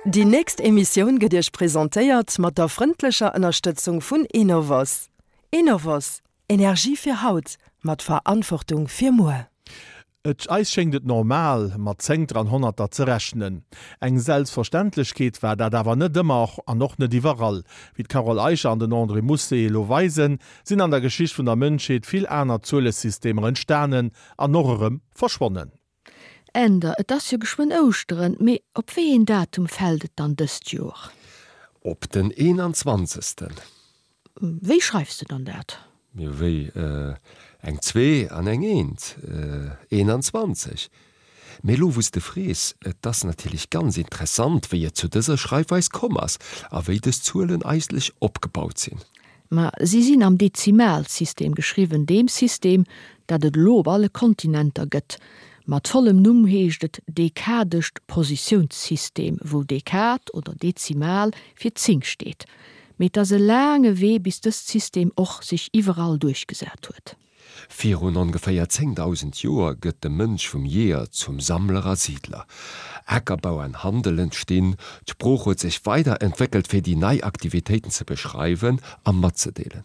Déi nächst Emissioun gëtt Iech presentéiert mat der frëndlecher Ënnerstëtzung vun Enovos. Enovos, Energie fir haut, mat Verantwortung fir muer. Et eis schéngt et normal, mat Zéngter an Honnerter ze rechnen. Eng Selbstverständlechkeet war dat awer net ëmmer an och net iwwerall. Wéi d'Carole Eicher an den André Mousset elo weisen, sinn an der Geschicht vun der Mënschheet vill aner Zuelesystemer entstanen an och erëm verschwonnen. Änder, Et ass jo geschwënn Ouschteren, mee op wéi een Datum fält et dann dëst Joer? Op den eenanzwanzegsten. Wéi schreifs de dann dat? Jo, wéi? Eng Zwee an eng Eent, 21. Mee elo wou s de frees, et ass natierlech ganz interessant, wéi et zu dëser Schreifweis komm ass a wéi dës Zuelen eigentlech opgebaut sinn. Ma si sinn am Dezimalsystem geschriwwen, deem System, dat et elo op alle Kontinenter gëtt. Mat vollem Numm heescht et dekadescht Positiounssystem, wou Dekad oder Dezimal fir 10 steet. Mee et ass e laange Wee bis dëst System och sech iwwerall duerchgesat huet. Virun ongeféier 10.000 Joer gëtt de Mënsch vum Jeeër zum Sammler a Siidler. Akerbau an Handel entstinn, d'Sprooch huet sech weider entwéckelt fir déi nei Aktivitéiten ze beschreiwen a matzedeelen.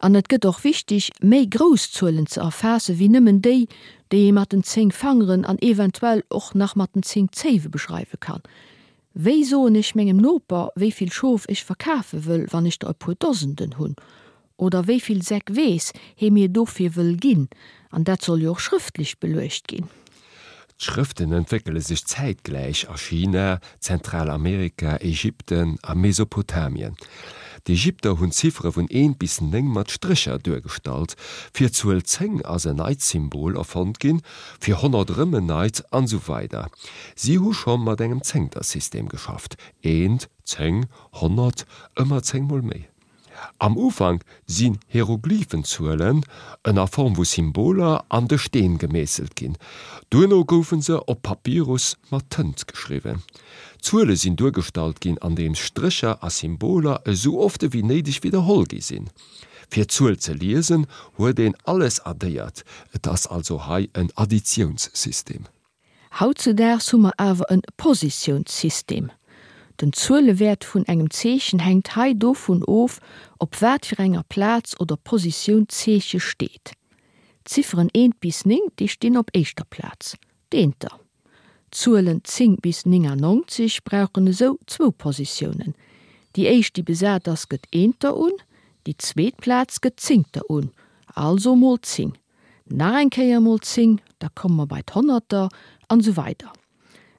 An et gëtt och wichteg, méi grouss Zuelen ze erfaasse wéi nëmmen déi, déi ee mat den 10 Fangeren an eventuell och nach mat den 10 Zéiwe beschreiwe kann. Wéi soen ech mengem Noper, wéi vill Schof ech verkafe wëll, wann ech der e puer Dosenden hunn? Oder wéi vill Säck Weess hee mir dofir wëll ginn? An dat soll jo och schrëftlech beluecht ginn. D'Schrëften entwéckele sech zäitgläich a China, Zentralamerika, Ägypten a Mesopotamien. D'Ägypter hunn d'Ziffere vun eent bis 9 mat Strécher duergestallt. Fir d'Zuel 10 ass en neit Symbol erfonnt ginn, fir 100 erëm en neit, an esou weider Si hu scho mat engem Zéngtersystem geschafft, eent, 10, 100, ëmmer 10 mol méi. Am Ufank sinn Hieroglyphenzuelen ënner Form vu Symboler an de Steen gemeesselt ginn. Duerno goufe se op Papyrus mat Tënt geschriwwen. D'Zuele sinn duergestallt ginn andeems Strécher a Symboler esou oft ewéi néideg widderholl gi sinn. Fir d'Zuel ze liesen huet een alles addéiert, et ass also hei en Additiounssystem. Hautzedaags hu mer awer en Positiounssystem. Den Zuelewäert vun engem Zeechen hänkt hei dovun of, op wat fir enger Plaz oder Positioun d'Zeeche steet. D'Zifferen eent bis 9, déi stinn op éischter Plaz, d'Eenter. D'Zuelen 10 bis 99 brauchen esou zwou Positiounen. Déi éischt, déi besat ass, gëtt Eenter un, déi zweet Plaz gëtt Zéngter un, also mol 10. Nach eng Kéier mol 10, da komme mer bei d'Honnerter, an esou weider.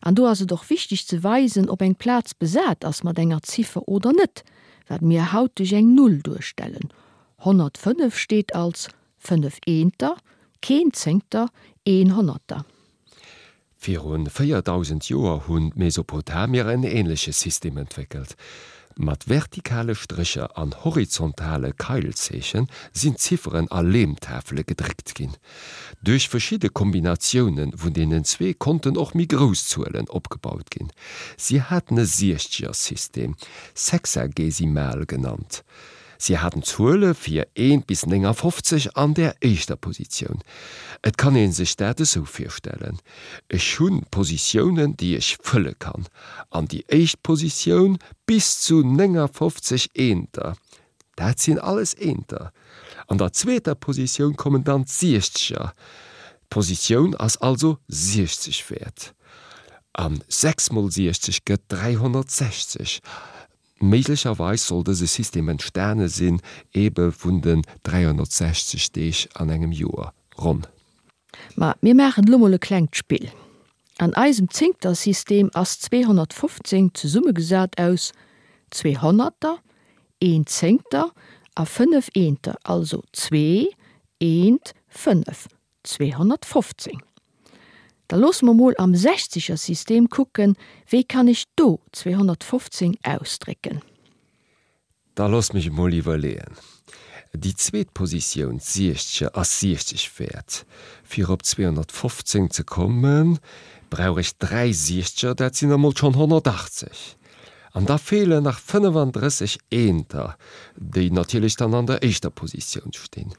An do ass et och wichteg ze weisen, ob eng Plaz besat ass mat enger Ziffer oder net, wat mir haut duerch eng Null duerstellen. 105 steet als 5 Eenter, keen Zéngter, een Honnerter. Viru 4.000 Joer hunn d'Mesopotamier en änleche System entwéckelt. Mat vertikale Strécher an horizontale Keilzeeche sinn d'Zifferen a Leemtafele gedréckt ginn. Duerch verschidde Kombinatioune vun deenen zwee konnten och méi grouss Zuelen opgebaut ginn. Si haten e Siechzegersystem, Sexagesimal genannt. Si haten d'Zuele fir eent bis 59 an der éischter Positioun. Et kann ee sech dat esou virstellen, Ech hu Positiounen, déi ech fëlle kann, an déi éischt Positioun bis zu 59 Eenter, dat sinn alles Eenter. An der zweeter Positioun kommen dann d'Siechzeger, d'Positioun ass also 60 wäert. A 6 mol 60 gëtt 360. Méiglecherweis soll dëse System entstane sinn ebe vun den 360 Deeg an engem Joer, ronn. Ma mir maachen elo mol e klengt Spill. An eisem Zéngtersystem ass 215 zesummegesat aus zwee Honnerter, een Zéngter a fënnef Eenter, also zwee, eent, fënnef, 215. Da loosse mer mol am Sechzegersystem kucken, wéi kann ech do 215 ausdrécken? Da looss mech emol iwwerleeën. Déi zweet Positioun, d'Siechzeger, ass 60 wäert. Fir op 215 ze kommen, brauch ech dräi Siechzeger, dat sinn emol schonn 180. An da feelen nach 35 Eenter, déi natierlech dann an der éischter Positioun stinn.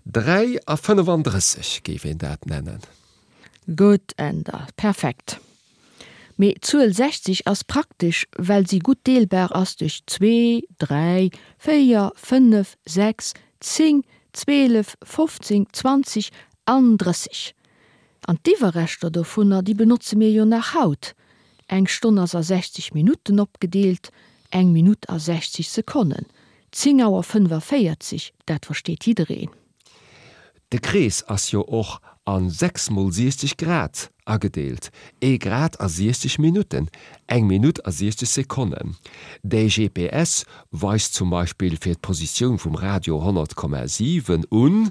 3 a 35 géif een dat nennen. Gutt, Änder, perfekt. Mee d'Zuel 60 ass praktesch, well si gutt deelbar ass duerch zwee, dräi, véier, fënnef, sechs, 10, 12, 15, 20 an 30. An d'Iwwerreschter dovunner, déi benotze mir jo nach haut. Eng Stonn ass a 60 Minutten opgedeelt, eng Minutt a 60 Sekonnen. 10 Auer 45, dat versteet jiddereen. De Krees ass jo och a 6 mol 60 Grad agedeelt, ee Grad a 60 Minutten, eng Minutt a 60 Sekonnen. De GPS weist zum Beispill fir d'Positioun vum Radio 100,7 un,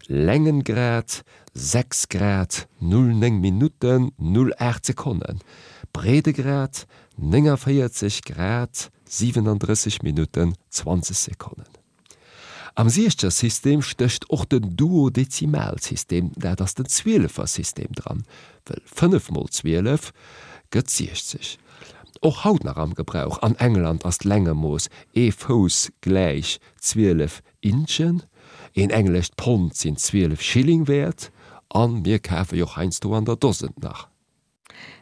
Längengrad 6 Grad 09 Minutten 08 Sekonnen, Breedegrad 49 Grad 37 Minutten 20 Sekonnen. Am Siechzersystem stécht och den Duodezimalsystem, dat ass den Zwielefersystem, dran, wëll 5 mol 12 gëtt 60. Och haut nach am Gebrauch, an England ass d'Längemooss ee Fouss gläich 12 Inchen, een englescht Pond sinn 12 Schilling wäert, a mir kafe jo och heiansdo an der Dosen nach.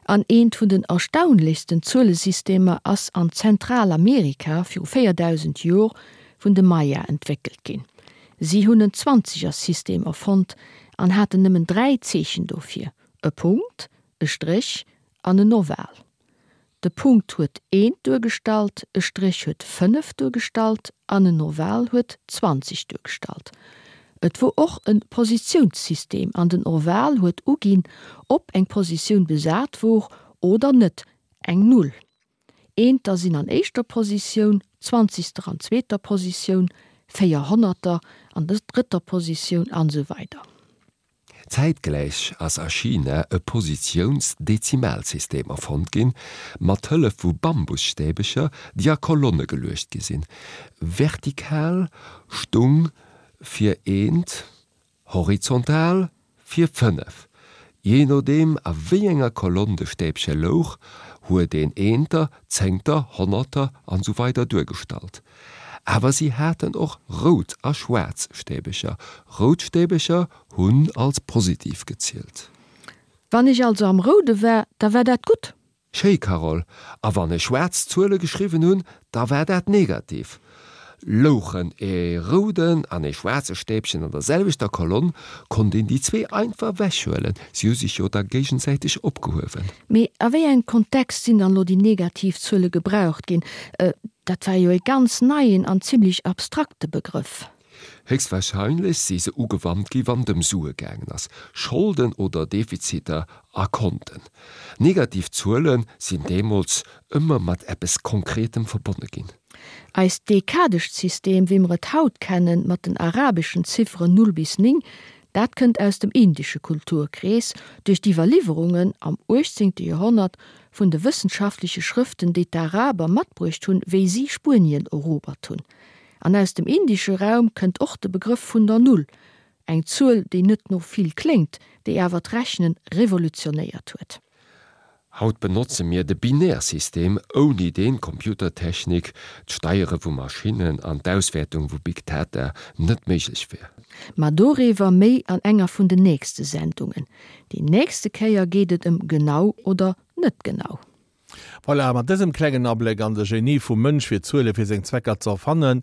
An eent vun den erstaunlechsten Zuelesystemer ass an Zentralamerika viru 4000 Jor vun de Maya entwéckelt ginn. Si hunn en Zwanzigersystem erfonnt an haten nëmmen 3 Zeechen dofir, e Punkt, e Stréch an en Oval. De Punkt huet eent duergestallt, e Stréch huet 5 duergestallt an en Oval huet 20 duergestallt. Et wor och en Positiounssystem an den Oval huet uginn, ob eng Positioun besat wor oder net, eng Null. Eenter sinn an éischter Positioun, Zwanzigster an zweeter Positioun, Véierhonnerter an der drëtter Positioun an esou weider. Zäitgläich ass a China e Positiouns-Dezimalsystem erfonnt ginn, mat Hëllef vu Bambusstäbecher, déi a Kolonne geluecht gi sinn. Vertikal stung fir eent, horizontal fir 5. Jee nodeem a wéi enger Kolonn de Stäbche louch, huet een Eenter, Zéngter, Honnerter an esou weider duergestallt. Awer si haten och rout a schwaarz Stäbecher. Rout Stäbecher hunn als positiv gezielt. Wann ech also am Roude war, da war dat gutt. Schéi Carole, a wann ech schwaarz Zuele geschriwwen hunn, da war dat negativ. Louchen ee rouden an ee schwaarze Stäbchen an der selwechter Kolonn, konnt een déi zwee einfach ewechhuelen, si hu sech jo da géigesäiteg opgehuewen. Mee a wéi engem Kontext sinn dann elo déi negativ Zuele gebraucht ginn? Dat war jo ee ganz neien an zimlech abstrakte Begrëff. Héchstwahrscheinlech si se ugewannt gi wann et ëm Sue gaangen ass, Scholden oder Defiziter a Konten. Negativ Zuele sinn deemools ëmmer mat eppes Konkretem verbonne ginn. Eist dekadescht System, wéi mer et haut kennen, mat den arabeschen Zifferen 0 bis 9, dat kënnt aus dem indesche Kulturkrees, duerch d'Iwwerliwwerungen am 18. Joerhonnert vun de wëssenschaftleche Schrëften, déi d'Araber matbruecht hunn, wéi si Spuenien erobert hunn. An aus dem indesche Raum kënnt och de Begrëff vun der Null, eng Zuel, déi net no vill kléngt, déi awer d'Rechnen revolutionéiert huet. Haut benotze mir de Binärsystem, ouni deen d'Computertechnik, d'Steiere vu Maschinnen an d'Auswäertung vu Big Data net méiglech wär. Ma doriwwer méi an enger vun den nächste Sendungen. Déi nächste Kéier geet et ëm genau oder net genau. Voilà, mat dësem klengen Abléck an de Genie vum Mënsch fir Zuele fir seng Zwecker ze erfannen,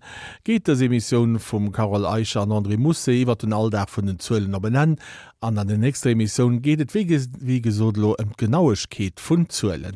geet dës Emissioun vum Carole Eicher an André Mousset iwwer den Alldag vun den Zuelen op en Enn. An an der nächster Emissioun geet et wéi gesot elo ëm d'Genauegkeet vun Zuelen.